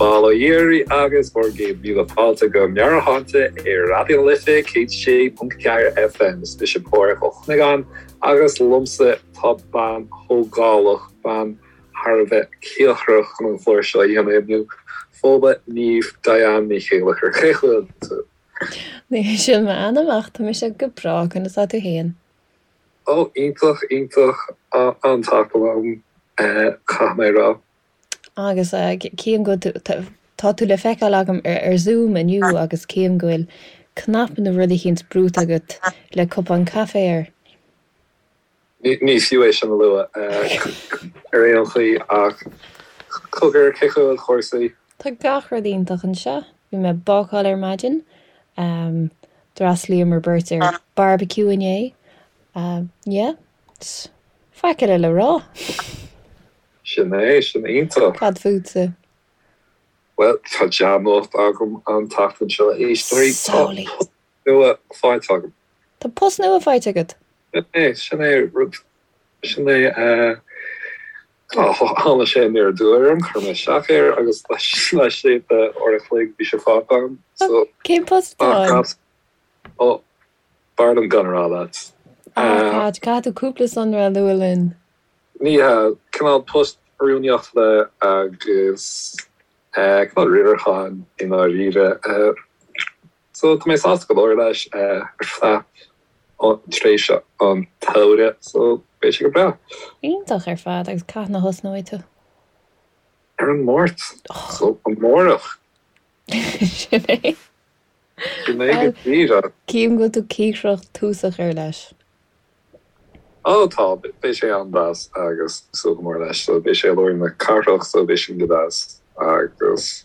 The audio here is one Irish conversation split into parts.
Bail ó Dhia oraibh agus bhur gcéad míle fáilte go Meabhairshláinte ar Raidió na Life 106.4 FM. Is mise Pádhraic Ó Cuinneagáin agus liomsa tá bean thógálach, bean thar a bheith cíocrach chun an clár seo a dhéanamh inniu, Fódhla Niamh Diane Ní Chéilleachair. Cén chaoi a bhfuil tú? Ní hé sin m'ainm ach tá mise go breá, conas tá tú féin? Ó, iontach, iontach, an-tseachtain agam, caithfidh mé a rá. Agus cím go bhfuil, tá tú le feiceáil agam ar Zoom inniu agus cím go bhfuil cnaipe nó rud eicínt brúite agat le cupán caife air. Ní fiú é sin a lua ar aon chaoi ach cogar, cén chaoi a bhfuil cúrsaí? Tá gach rud iontach anseo. Bhí mé ag bácáil ar maidin. D'fhreastlaíomar beirt ar barbecue inné. Yeah, faic eile le rá. Sin é, sin iontach. Cad fútsa? Bhuel, tá dea-nuacht agam an tseachtain seo, a éisteoirí. Tá post nua faighte agam. Tá post nua faighte agat? Sin é, sin é rud, sin é, tháinig sé aniar aduaidh orm, chuir mé isteach air agus laistigh de uair a chloig bhí sé faighte agam. So, Cén post atá ann? Ó, b'fhearr liom gan a rá leat. Ah, caithfidh tú cúpla sonra a lua linn. Ní hea, cineál post rúnaíochta agus cineál riaracháin i ndáiríre. So tá mé sásta go leor leis ar feadh tréimhse an tsamhraidh, so beidh sé go breá. Iontach ar fad, agus cathain a thosnóidh tú? Ar an Máirt, so amárach. Sin é. Sin é go díreach. Cím go bhfuil tú cíocrach tús a chur leis. Ó tá, beidh sé an-deas agus súil go mór leis. So beidh sé i lár na cathrach so beidh sin go deas agus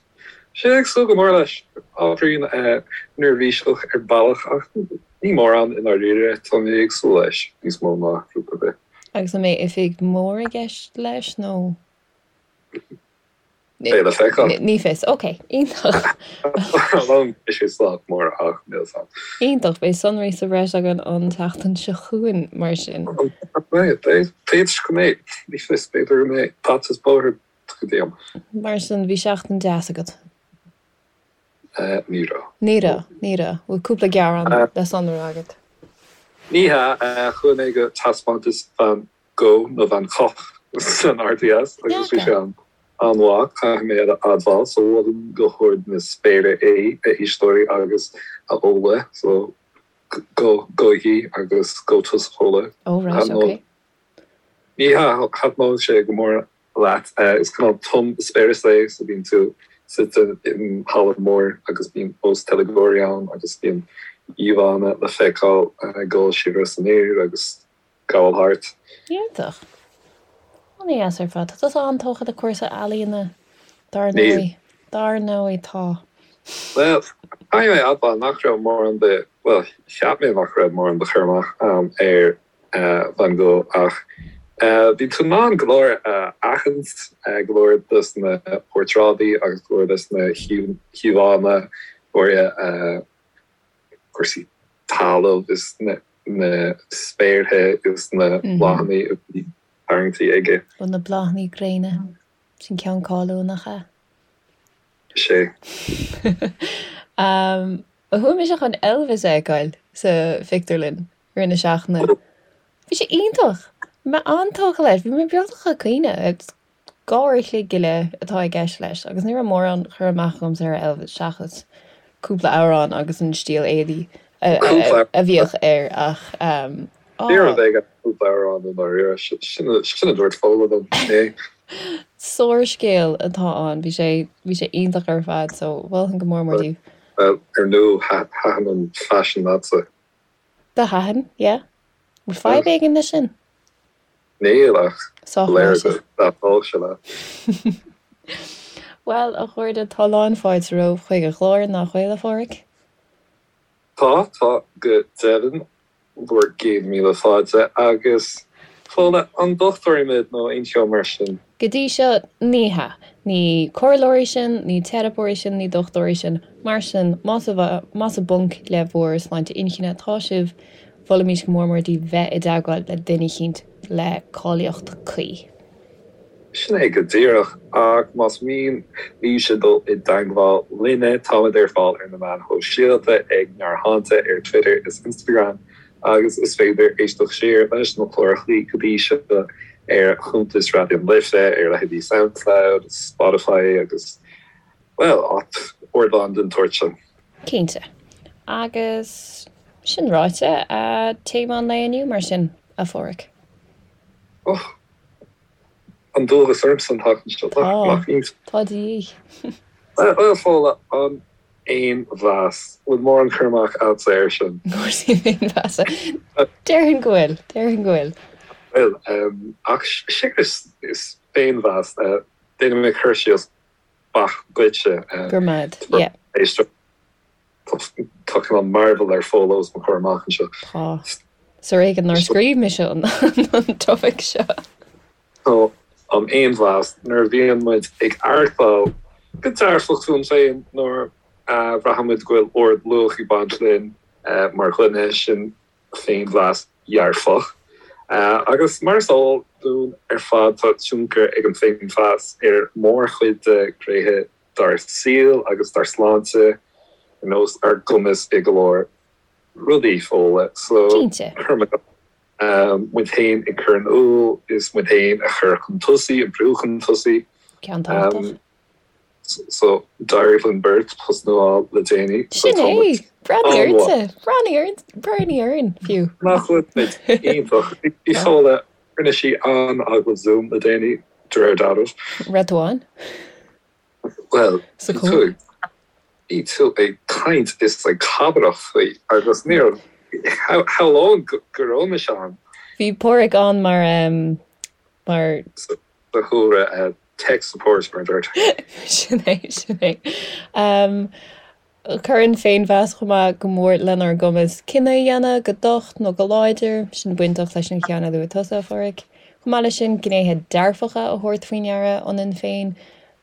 sea ag súil go mór leis. Ábhairín neirbhíseach ar bealach ach ní mórán i ndáiríre, tá mé ag súil leis níos mó ná rud ar bith. Agus an mbeidh oifig mór i gceist leis nó? Beidh le feiceáil. Ní fios. Ok, iontach. Beidh sé sách mór ach níl 's a'm. Iontach, beidh sonraí sa bhreis againn an tseachtain seo chugainn mar sin. Beidh, b'fhéidir go mbeidh, ní fios, b'fhéidir go mbeidh bata is bóthar tugtha díom. Mar sin, bhí seachtain deas agat? Ní raibh. Ní raibh, ní raibh. Bhfuil cúpla gearán le sonrú agat? Ní hea, chuaigh mé go taispeántas Van Gogh nó Van Gogh san RDS agus bhí sé an-mhaith, caithfidh mé a admháil, so mholfainn go hard na spéire é, a éisteoirí agus a Fhódhla, so go, gabhaigí agus gabh tusa Fódhla. Oh right, ok. Ní hea, thaitneodh sé go mór leat, is cineál tum eispéireas é, so bíonn tú suite in halla mór agus bíonn os teilgeoirí ann agus bíonn íomhánna le feiceáil ag dul siar is aniar agus gabháil thart. Iontach. An-dheas ar fad. Tá tusa an-tógtha le cúrsaí ealaíona, dar ndóigh. Dar ndóigh, tá. Bhuel, caithfidh mé a admháil nach raibh mórán de, bhuel, cheap mé nach raibh mórán de chur amach agam ar Van Gogh ach bhí tú in ann go leor a aithint, go leor dos na portráidí agus go leor dos na híomhánna, go háirithe cúrsaí talaimh is na na spéartha is na bláthanna a bhí tarraingtí aige. Ó na bláthanna gréine. Sin ceann cáiliúil, nach ea? Is ea. Chuaigh mise chun Elvis a fheiceáil sa phictiúrlann i rith na seachtaine. Bhí sé iontach! Bhí mé an-tógtha leis. Bhí mé beagnach ag caoineadh. 2 uair a chloig go leith atá i gceist leis agus ní raibh mórán cur amach agamsa ar Elvis seachas cúpla amhrán agus an stíl éadaí a bhíodh air ach Ní raibh ag cúpla amhrán i ndáiríre, sin a dúirt Fódhla liom é. Sárscéal atá ann, bhí sé bhí sé iontach ar fad so mholfainn go mór mór daoibh. Ar ndóigh thaitin an faisean leatsa. Do thaitin, yeah. Bhfuil fadhb éigin leis sin? Níl ach léir go dtaitneodh sé leat. Bhuel, a chairde, tá lán fáilte romhaibh chuig an gclár, nach bhfuil, a Pháraic? Tá, tá go deimhin. Bhur gcéad míle fáilte. Agus, Fódhla, an dochtúirí muid nó aon cheo mar sin? Go dtí seo, ní hea. Ní comhairleoirí sinn, ní teiripeoirí sinn, ní dochtúirí sinn. Mar sin, más i bponc le bhur sláinte inchinne atá sibh, Mholfaimis go mór mór daoibh bheith i dteagmháil le duine eicínt le cáilíocht cuí. Sin é go díreach, ach más mian libhse dul i dteagmháil linne, táimid ar fáil ar na meáin shóisialta ag Meabhairshláinte ar Twitter is Instagram agus is féidir éisteacht siar leis na clárachaí go dtí seo ar chuntas Raidió na Life ar leithéidí Soundcloud, Spotify agus, bhuel, ardáin den tsórt sin. Cinnte. Agus sin ráite, téama an lae inniu mar sin, a Pháraic. Och! An dualgas ormsa an tseachtain seo, nach iontach? Tá de dhíth. Bhuel, Fódhla, an féinmheas. Bhfuil mórán cur amach agatsa air sin? Cúrsaí féinmheasa. Déarfainn go bhfuil, déarfainn go bhfuil. Bhuel, ach séard is féinmheas, déanfaidh mé cur síos beacht duitse. Go raibh maith agat, yeah. Tá cineál mearbhall ar Fódhla os mo chomhair amach anseo. Tá. Is ar éigean nár scríobh mise an topaic seo. So, an féinmheas, nuair a bhíonn muid ag aireachtáil go dearfach fúinn féin, nuair a bhraitheann muid go bhfuil ard-luach ag baint linn mar dhuine, sin féinmheas dhearfach. Agus mar is eol dúinn ar fad, tá tionchar ag an féinmheas ar mhórchuid de ghnéithe dár saol agus dár sláinte, ar nós ár gcumas i go leor rudaí, Fódhla. So, Cinnte. muid féin ag cur in iúl is muid féin a chur chun tosaigh, a bhrú chun tosaigh. Ceann tábhachtach. So, d'éirigh linn beirt post nua a fháil le déanaí. So, Sin tá muid é! Breathnaigh ortsa! Breathnaigh orainn, breathnaigh orainn, fiú. Nach bhfuil muid iontach? Bhí Fódhla, rinne sí an-agallamh Zoom le déanaí, de réir dealraimh. Raibh tú ann? Bhuel, bhí tú ag, bhí tú ag caint is ag cabaireacht faoi agus ní raibh, shamhlóinn go raibh mise ann. Bhí Páraic ann mar, mar. Sa chúlra, tech support mar a deirtear. Sin é, sin é. Cuireann féinmheas chomh maith go mór lenár gcumas cinneadh a dhéanamh, go docht nó go láidir, sin bainteach leis an cheann a luaigh tusa, a Pháraic. Chomh maith leis sin, gnéithe dearfacha a thabhairt faoi ndeara ionainn féin,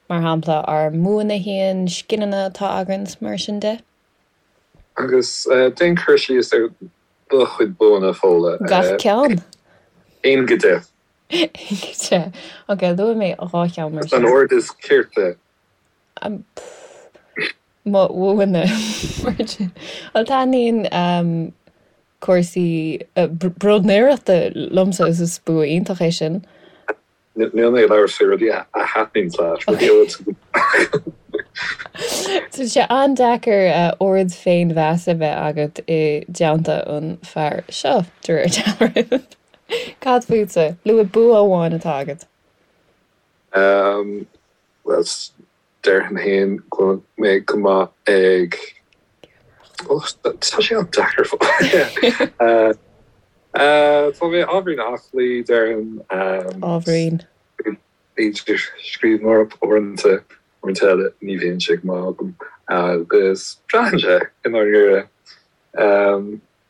mar shampla ár mbuanna féin, scileanna atá againn is mar sin de. Agus déan cur síos ar do chuid buanna, Fódhla. Gach ceann. 1 go 10. 1 go 10. Ok, luaigh mé 2 cheann mar sin. San ord is cirte. Mo bhuanna mar sin. Bhuel, taitníonn cúrsaí bróidnéireachta liomsa is is bua iontach é sin. Níl mé ag labhairt faoi rudaí a thaitníonn leat, rudaí a bhfuil tú go Tá sé an-deacair ard-fhéinmheas a bheith agat i dteannta an fear seo, de réir dealraimh. Cad fútsa? Luaigh bua amháin atá agat. Bhuel, déarfainn féin go bhfuil mé go maith ag, tá sé an-deacair. Tá mé ábhairín aclaí, déarfainn. Ábhairín. B'fhéidir scríbhneoireacht uaireanta, uaireanta eile ní bhíonn sé go maith agam agus braitheann sé i ndáiríre.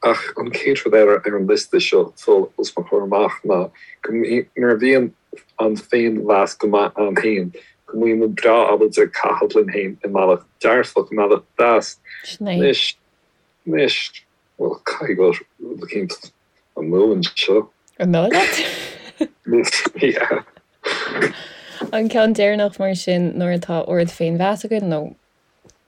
Ach an chéad rud eile ar an liosta seo os mo chomhair amach ná go nuair a bhíonn an féinmheas go maith ann féin, go mbíonn muid breá ábalta caitheamh linn féin i mbealach dearfach, i mbealach deas. Sin é. Anois, anois, bhuel, caithfidh go bhfuil rud eicínt amú anseo. An dóigh leat? Yeah. An ceann deireanach mar sin, nuair atá ard-fhéinmheas againn, nó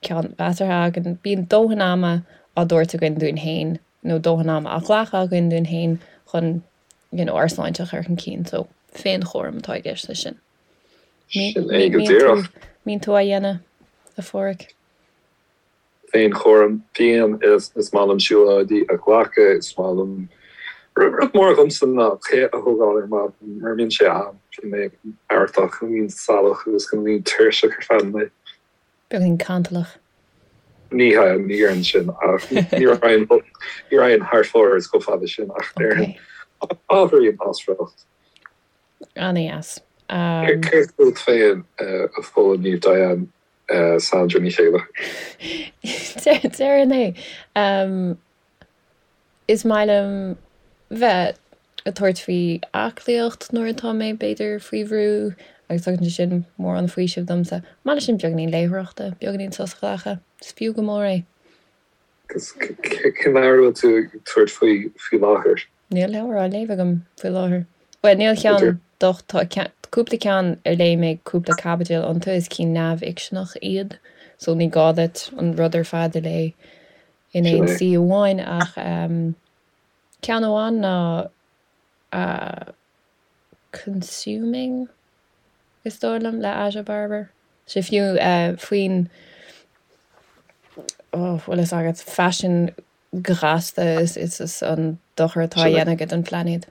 ceann measartha againn, bíonn dóthain ama á dtabhairt againn dúinn féin nó dóthain ama á ghlacadh againn dúinn féin chun you know ár sláinte a chur chun cinn. So féinchúram atá i gceist leis sin. Sin é go díreach. Mbíonn tú á dhéanamh, a Pháraic? Féinchúram, bíonn, is maith liom siúlóidí a ghlacadh, is maith liom, rud mór dhomsa ná tae a thógáil ar maidin, mura mbíonn sé a'm, bíonn mé artach, bíonn salach agus go mbíonn tuirseach ar feadh an lae. Beagáinín cantalach. Ní hea, ní déarfainn sin, ach ní raghainn, ní raghainn thar fóir chomh fada sin, ach déarfainn ábhairín as riocht. An-dheas. Céard fút féin, a Fódhla Niamh Diane Sandra Ní Chéile? Déarfainn é. Is maith liom bheith ag tabhairt faoi aclaíocht nuair atá mé, b'fhéidir, faoi bhrú agus tugann sé sin mórán faoisimh domsa. Chomh maith leis sin beagáinín léitheoireachta, beagáinín sos a ghlacadh, is fiú go mór é. Agus cén leabhar a bhfuil tú ag tabhairt faoi faoi láthair? Níl leabhar á léamh agam faoi láthair. Bhuel, níl ceann docht, tá. Cúpla ceann ar léigh mé cúpla caibidil iontu, is cinn neamhfhicseanach iad, so ní gá duit an rud ar fad a léamh in aon suí amháin ach ceann amháin ná Consuming, is dóigh liom, le Aja Barber. Sé fiú faoin, oh, bhfuil fhios agat, faisean gasta is is an dochar atá á dhéanamh aige don phláinéad.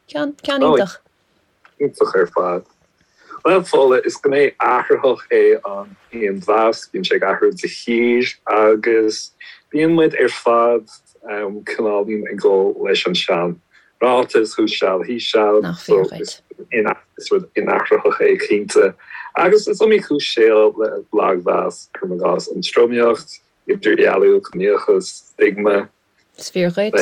Ceann, ceann iontach. Iontach ar fad. Bhuel, Fódhla, is gné athraitheach é an féinmheas, bíonn sé ag athrú de shíor agus bíonn muid ar fad cineáilín ag dul leis an sean ráiteas, who shall, he shall, Nach fíor dhuit. Is rud inathraitheach é cinnte. Agus is iomaí cúis shaoil le lagmheas, cuirim i gcás, an tromaíocht, idirdhealú, ciníochas, stigma. Is fíor dhuit.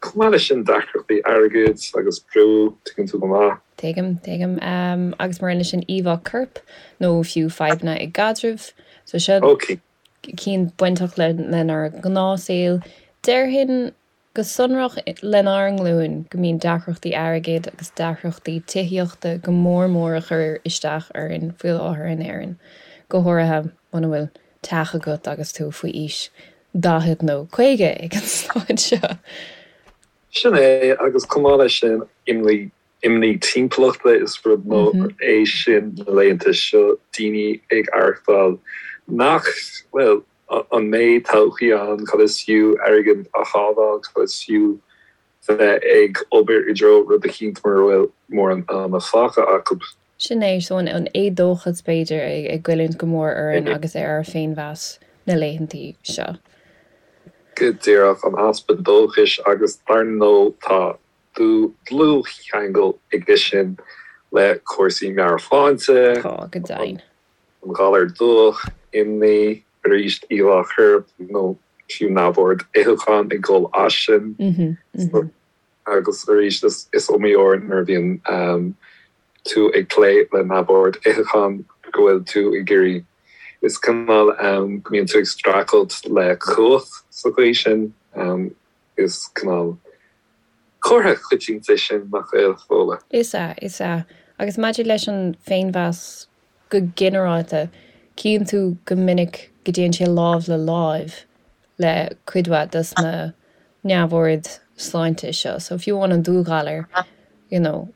Chomh maith leis sin, deacrachtaí airgid agus brú, tuigeann tú go maith. Tuigim, tuigim. Agus mar aon leis sin íomhá coirp nó fiú fadhbanna i gcaidrimh. So seo cinn bainteach lenár ngnáthshaol. Déarfainn go sonrach lenár nglúin go mbíonn deacrachtaí airgid agus deacrachtaí tithíochta go mór mór ag cur isteach orainn faoi láthair in Éirinn, go háirithe muna bhfuil teach agat agus tú faoi aois 40 nó 50 ag an staid seo. Sin é, agus chomh maith leis sin, imní, imní timpeallachta, is rud mór é sin na laethanta seo, daoine ag aireachtáil nach, bhuel, an mbeidh todhchaí ann, cad is fiú airgead a shábháil, cad is fiú bheith ag obair i dtreo rud eicínt mura bhfuil mórán ama fágtha acu. Sin é, so an éadóchas b'fhéidir ag goilliúint go mór orainn agus ar ár féinmheas na laethantaí seo. Go díreach, an easpa dóchais agus dar ndóigh tá dlúthcheangal aige sin le cúrsaí meabhairshláinte. Tá, go deimhin. An galar dubhach, imní, arís íomhá choirp nó fiú neamhord itheacháin ag dul as sin. Agus arís is iomaí uair nuair a bhíonn tú ag plé le neamhord itheacháin go bhfuil tú ag iarraidh, is cineál go mbíonn tú ag streachailt le cumhacht sa chaoi sin, is cineál comhartha coitianta é sin, nach bhfuil, Fódhla? Is ea, is ea. Agus maidir leis an bhféinmheas go ginearálta, cíonn tú go minic go dtéann sé lámh le láimh le cuid mhaith dos na neamhoird sláinte seo. So fiú amháin an dúghalar, you know,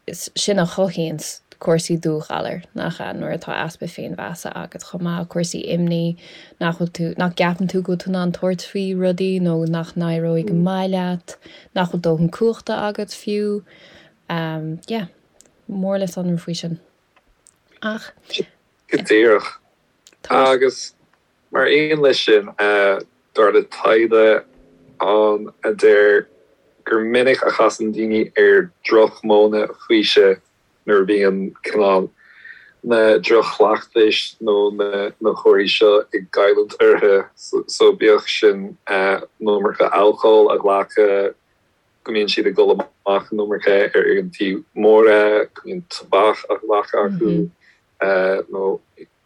is sin a chothaíonns cúrsaí dúghalair, nach ea, nuair atá easpa féinmheasa agat chomh maith, cúrsaí imní, nach bhfuil tú, nach gceapann tú go bhfuil tú in ann tabhairt faoi rudaí nó nach n-éireoidh go maith leat, nach bhfuil dóthain cumhachta agat fiú. Yeah, mór le sonrú faoi sin. Ach. Go díreach. Agus Mar aon leis sin, dar le taighde ann a deir gur minic a chasann daoine ar dhroch-mhodhanna faoisimh nuair a bhíonn cineál na droch-chleachtais nó na cúrsaí seo ag goilliúint orthu, so bíodh sin an iomarca alcóil a ghlacadh, go mbíonn siad ag dul amach an iomarca ar oícheantaí móra, go mbíonn tobac á ghlacadh acu nó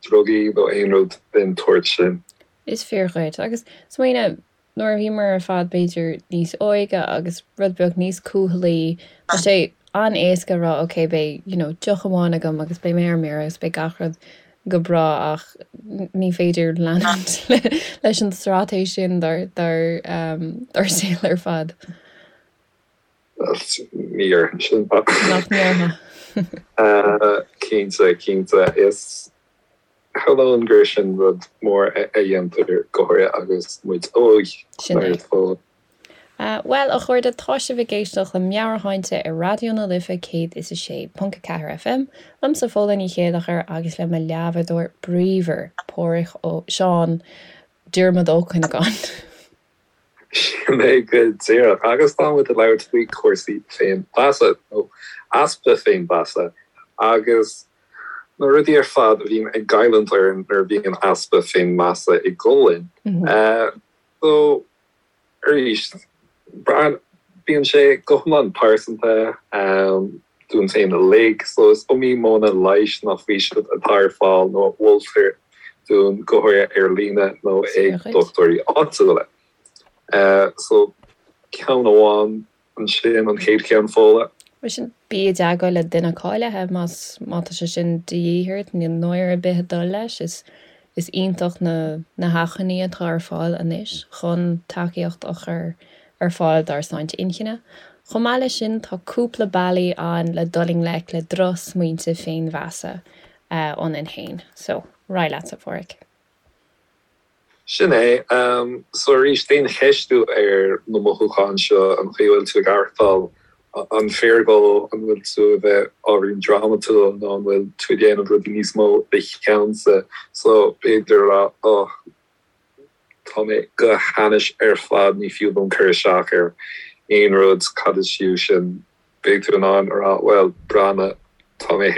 drugaí nó aon rud den tsórt sin. Is fíor dhuit. Agus smaoinigh, nuair a bhíomar ar fad b'fhéidir níos óige agus rud beag níos cúthalaí, tá sé an-éasca a rá ok beidh you know deoch amháin agam agus beidh mé ar mire agus beidh gach rud go breá ach ní féidir leanúint leis an straitéis sin dár dár dár saol ar fad. Ní dhéarfainn sin. Nach ndéarfá? Cinnte, cinnte. Is shamhlóinn gur sin rud mór a dhéantar go háirithe agus muid óg. Sin é. Bhuel, a chairde, tá sibh ag éisteacht le Meabhairshláinte ar Raidió na Life 106.4 FM, liomsa Fódhla Ní Chéilleachair agus le mo leathbhádóir bríomhar, Páraic Ó, Seán Diarmuid Ó Cuinneagáin. Sin é go díreach. Agus tá muid ag labhairt faoi chúrsaí féinmheasa, nó easpa féinmheasa, agus na rudaí ar fad a bhíonn ag goilliúint orainn nuair a bhíonn easpa féinmheasa ag dul linn. So, arís, bíonn sé go hiomlán pearsanta dúinn féin uilig, so is iomaí modhanna leighis nó faoisimh atá ar fáil nó a mholtar dúinn, go háirithe ar líne nó ag dochtúirí áitiúla. So, ceann amháin ansin, an chéad cheann, Fódhla. Mar sin, bí i dteagmháil le duine cáilithe más má tá sé sin de dhíth ort, níl náire ar bith ag dul leis, is is iontach na na hacmhainní atá ar fáil anois chun tacaíocht a chur ar fáil dár sláinte inchinne. Chomh maith leis sin, tá cúpla bealaí ann le dul i ngleic le drochsmaointe féinmheasa ionainn féin. So, ar aghaidh leatsa, a Phádraig. Sin é. So arís, déan ceistiú ar na mothúcháin seo, an chaoi a bhfuil tú ag aireachtáil, an fíor go an bhfuil tú a bheith ábhairín drámatúil nó an bhfuil tú ag déanamh rudaí níos mó de cheannsa. So b'fhéidir a rá, oh, tá mé go hainnis ar fad, ní fiú dom cur isteach ar aon rud, cad is fiú sin? Beidh tú in ann a rá, bhuel, breathnaigh, tá mé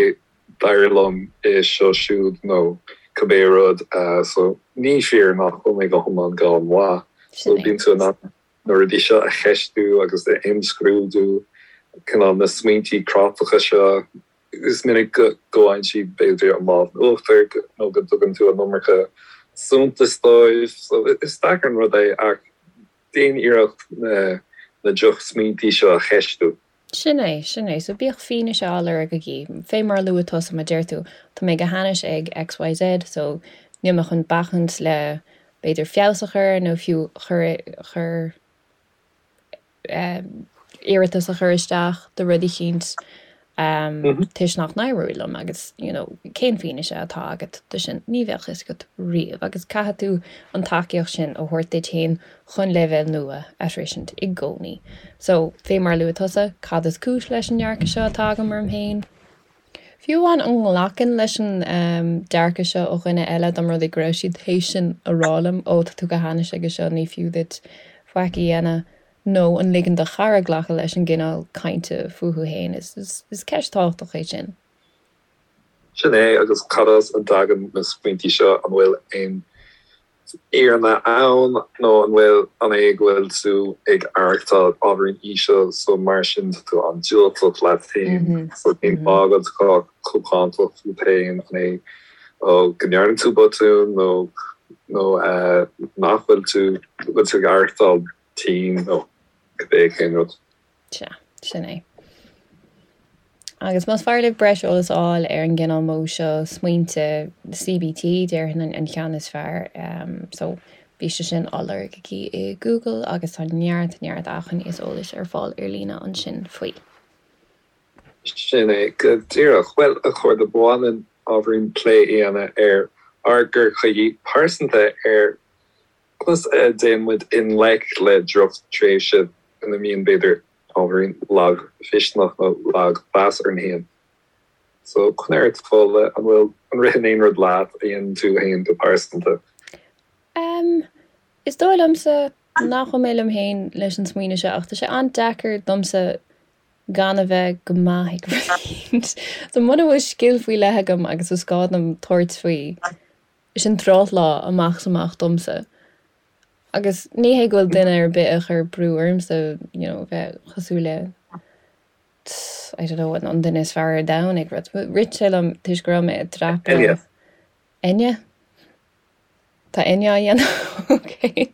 d'éirigh liom é seo siúd nó cibé rud so ní fíor nach bhfuil mé go hiomlán gan mhaith. So bíonn tú in ann na rudaí seo a cheistiú agus a imscrúdú, cineál na smaointí cráiteacha seo, is minic go bhfaigheann siad b'fhéidir an lámh in uachtar nó go dtugann tú an iomarca suntais dóibh. So is deacair an rud é ach déan iarracht na na drochsmaointí seo a cheistiú. Sin é, sin é. So bíodh fianaise á lorg agaibh. Fé mar a luaigh tusa, má deir tú, tá mé go hainnis ag XYZ, so níl mé chun bacaint le b'fhéidir feabhas a chur nó fiú chur, chur eh, iarratas a chur isteach do rud eicínt toisc nach n-éireoidh liom agus you know cén fianaise atá agat de sin? Ní bheadh fhios agat riamh agus caithfidh tú an tacaíocht sin a thabhairt duit féin chun leibhéal nua a shroisint i gcónaí. So, fé mar a luaigh tusa, cad is cúis leis an ndearcadh seo atá agam orm féin? Fiú amháin an nglacfainn leis an dearcadh seo ó dhuine eile dá mba rud é go raibh siad théis sin a rá liom, ó tá tú go hainnis aige seo, ní fiú duit faic a dhéanamh, nó an ligeann do chara glacadh leis an gcineál cainte fúthu féin? Is ceist tábhachtach é sin. Sin é, agus cad as a dtagann na smaointí seo? An bhfuil aon fhírinne ann nó an bhfuil, an é go bhfuil tú ag aireachtáil ábhairín íseal so mar sin tá tú an-diúltach leat féin so cén fáth go bhfuil tú chomh cáinteach fút féin, an é ó go ndearna tú botún nó nó nach bhfuil tú, go bhfuil tú ag aireachtáil tinn nó cibé cén rud. Sea, sin é. Agus más fearr libh breis eolas a fháil ar an gcineál modh seo smaointe, CBT, déarfainn an ceann is fearr. So, bhí sé sin á lorg aici i Google agus tá neart, neart acmhainní is eolais ar fáil ar líne ansin faoi. Sin é go díreach. Bhuel, a chairde, ba mhaith linn ábhairín plé a dhéanamh ar ár gcur chuige pearsanta ar Conas a dtéann muid i ngleic le drochtréimhse ina mbíonn, b'fhéidir, ábhairín lagmhisneach nó lagmheas orainn féin? So, conair ort, Fódhla, an bhfuil, an ritheann aon rud leat a dhéanann tú féin go pearsanta? Em, is dóigh liomsa nach bhfuil mé liom féin leis an smaoineamh seo ach tá sé an-deacair domsa gan a bheith go maith ag rud éicint. So muna bhfuil scil faoi leith agam agus is gá dom tabhairt faoi, Sin drochlá amach is amach domsa. Agus ní hé go bhfuil duine ar bith ag cur brú ormsa you know bheith cosúil le I don't know an duine is fearr ar domhan ag rud. Rith sé liom toisc go raibh mé ag dreapadh. Enya. Enya? Tá Enya á dhéanamh? Ok.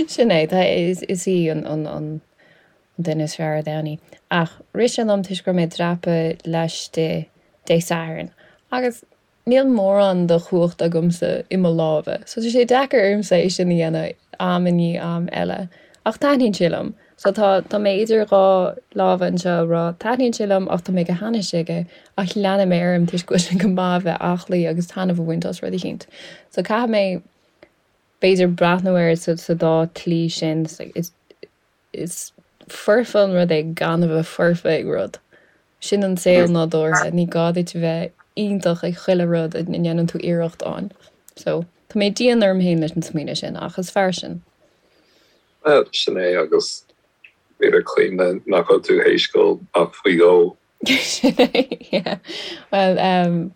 Sin é, tá, is, is í an, an, an, an duine is fearr ar domhan í. Ach rith sé liom toisc go raibh mé ag dreapadh laistigh Dé Sathairn agus níl mórán de chumhacht agamsa i mo lámha, so tá sé deacair ormsa é sin a dhéanamh am i ndiaidh am eile. Ach taitníonn sé liom. So tá, tá mé idir dhá lámha anseo ag rá taitníonn sé liom ach tá mé go hainnis aige ach leanfaidh mé orm toisc go bhfuil sé go maith a bheith aclaí agus taitneamh a bhaint as rud eicínt. So caithfidh mé b'fhéidir breathnú air sa dá tslí sin. Is foirfe an rud é gan a bheith foirfe ag rud. Sin an saol nádúrtha, ní gá duit a bheith iontach ag chuile rud a ndéanann tú iarracht ann. So, tá mé dian orm féin leis an smaoineamh sin, ach is fearr sin. Bhuel, sin é agus b'fhéidir cuimhne nach bhfuil tú théis gol ach faoi dhó. Sin é, yeah. Bhuel,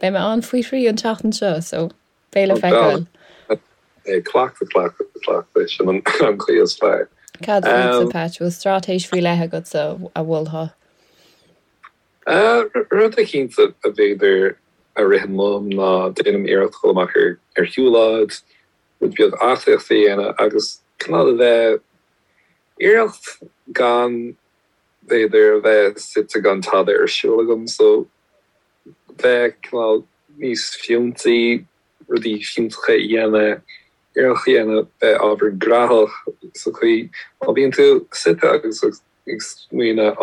beidh mé ann faoi thrí an tseachtain seo, so Beidh le feiceáil. Cleachtadh, cleachtadh, cleachtadh, sin an chaoi is fearr. Cad fútsa, Patch? Bhfuil straitéis faoi leith agatsa a mholfá? Rud eicínt a b'fhéidir a ritheann liom ná déanaim iarracht dul amach ar shiúlóid, rud beag aclaíochta a dhéanamh agus cineál a bheith iarracht gan. B'fhéidir a bheith suite gan tada ar siúl agam so bheith cineál níos fiúntaí, rudaí fiúntacha a dhéanamh, iarracht a dhéanamh bheith ábhairín graitheach sa chaoi má bhíonn tú suite agus ag smaoineamh á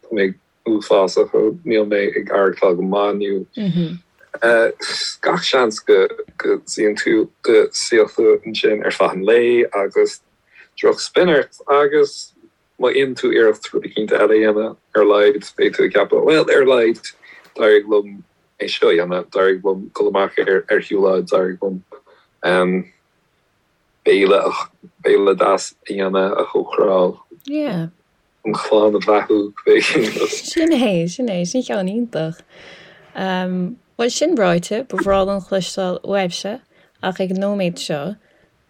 tá mé uafásach níl mé ag aireachtáil go maith inniu. Gach seans go go suíonn tú go suífidh tú ansin ar feadh an lae agus drochspin ort agus má dhéanann tú iarracht rud eicínt eile a dhéanamh, ar a laghad beidh tú ag ceapadh, bhuel, ar a laghad d'éirigh liom é seo a dhéanamh, d'éirigh liom dul amach ar ar shiúlóid, d'éirigh liom béile béile deas a dhéanamh, a chócaráil. Yeah. An chlann a bheathú, b'fhéidir. Sin é, sin é, sin ceann iontach. Bhuel, sin ráite, ba bhreá liom cloisteáil uaibhse, ach ag an nóiméad seo,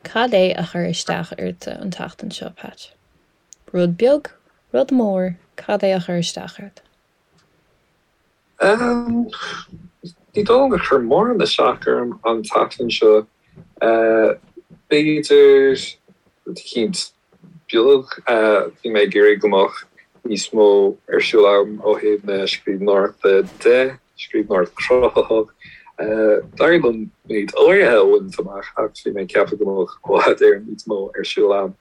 Cad é a chuir isteach ortsa an tseachtain seo, Pat? Rud beag, rud mór, cad é a chuir isteach ort? Ní dóigh liom gur chuir mórán isteach orm an tseachtain seo. B'fhéidir rud eicínt beag. Bhí mé ag iarraidh go mbeadh níos mó ar siúl agam ó thaobh na scríbhneoireachta de, scríbhneoireacht chruthaitheach. D'éirigh liom méid áirithe a bhaint amach ach bhí mé ag ceapadh go mbeadh i bhfad Éireann níos mó ar siúl agam.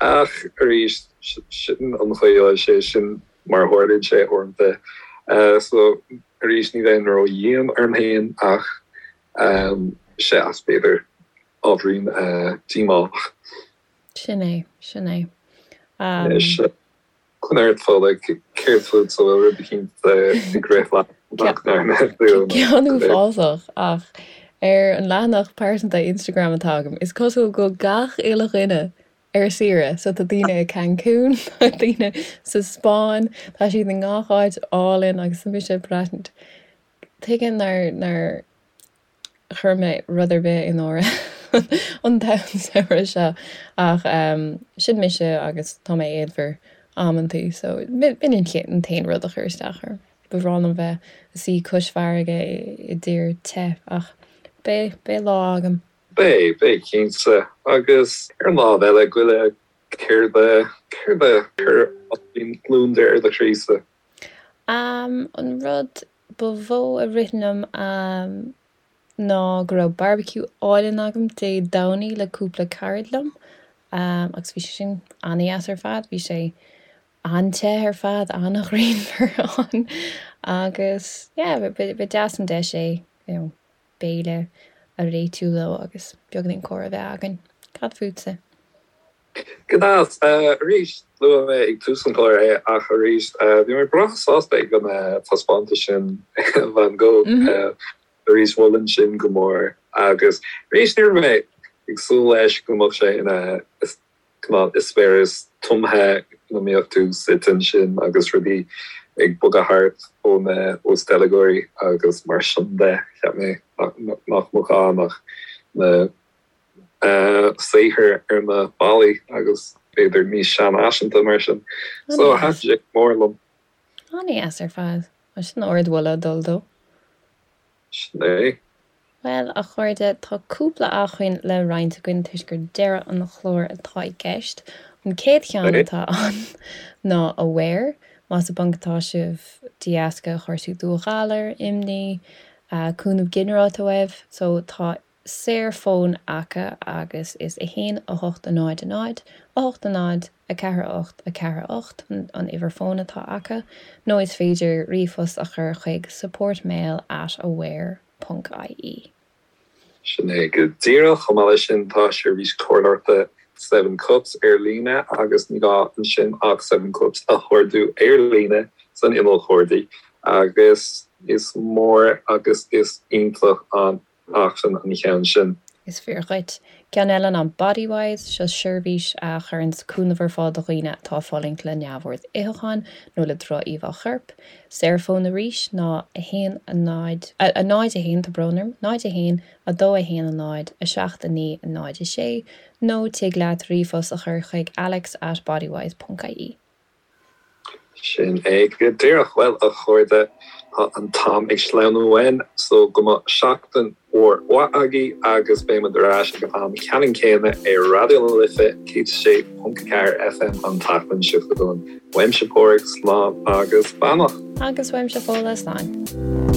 Ach arís, sin an chaoi a bhfuil sé, sin mar a tharlaíonn sé uaireanta. So arís, ní bheinn ró-dhian orm féin ach sea, b'fhéidir ábhairín díomách. Sin é, sin é. Anois, coinnigh ort, Fódhla, céard fút, an bhfuil rud eicínt ag rith leat nach ndearna tú? Ceann uafásach, ach ar an leathanach pearsanta Instagram atá agam, is cosúil go bhfuil gach uile dhuine ar saoire. So tá daoine i Cancún, tá daoine sa Spáinn, tá siad i ngach áit álainn agus tá mise ag braithint. Tuige nár, nár chuir mé rud ar bith in áirithe an t-samhradh seo ach sin mise agus tá mé éadmhar amantaí so b'in an t-aon rud a chuir isteach orm. Ba bhreá liom bheith ag suí cois farraige i dtír te ach beidh, beidh lá agam. Beidh, beidh cinnte. Agus ar an lámh eile, goile, céard a, céard a chuir gliondar ar do chroí-sa? An rud ba mhó a rith liom ná go raibh barbecue álainn agam Dé Domhnaigh le cúpla carad liom agus bhí sé sin an-dheas ar fad. Bhí sé an-te ar fad, an-ghrianmhar ann agus yeah ba deas an deis é you know béile a réitiú leo agus beagáinín comhrá a bheith againn. Cad fútsa? Go deas. Arís, luaigh mé ag tús an chláir é ach arís, bhí mé breá sásta ag an taispeántas sin Van Gogh. Arís, mholfainn sin go mór. Agus arís, ní raibh mé ag súil leis go mbeadh sé ina cineál eispéireas tumtha ina mbeadh tú suite ansin agus rudaí ag bogadh thart ó na teilgeoirí agus mar sin de. Cheap mé nach mbeadh ann ach na saothair ar na ballaí agus b'fhéidir níos seanfhaiseanta mar sin. So thaitin sé go mór liom. An-dheas ar fad. Sin ardmholadh dul dó. Sin é. Bhuel, a chairde, tá cúpla acmhainn le roinnt againn toisc gur deireadh an chláir atá i gceist. An chéad cheann atá ann ná Aware. Más i bponc atá sibh de dheasca chúrsaí dúghalair, imní, cúnamh ginearálta uaibh, so tá saorfhón acu agus is 1 8 0 0 8 0 4 8 4 8 an uimhir fóin atá acu nó is féidir ríomhphost a chur chuig supportmail at aware ponc ie. Sin é go díreach. Chomh maith leis sin tá seirbhís comhairleoireachta Seven Cups ar líne agus ní gá ansin ach Seven Cups a chuardú ar líne san inneall cuardaigh agus is mór agus is iontach an acmhainn an cheann sin. Is fíor dhuit. Ceann eile ná Bodywhys, seo seirbhís a chuireanns cúnamh ar fáil do dhaoine atá ag fulaingt le neamhord itheacháin nó le droch-íomhá choirp. Saorfhón arís ná 1 0 0 1, tá brón orm, 0 1 2 1 0 7 9 0 6 nó tig leat ríomhphost a chur chuig alex at bodywhys ponc ie. Sin é go díreach. Bhuel, a chairde, tá an t-am ag sleamhnú uainn, so go mbeadh seachtain mhór mhaith agaibh agus beidh muid ar ais ag an am ceannann céanna ar Raidió na Life 106.4 FM an tseachtain seo chugainn. Uaimse Páraic, slán agus beannacht. Agus uaimse Fódhla, slán.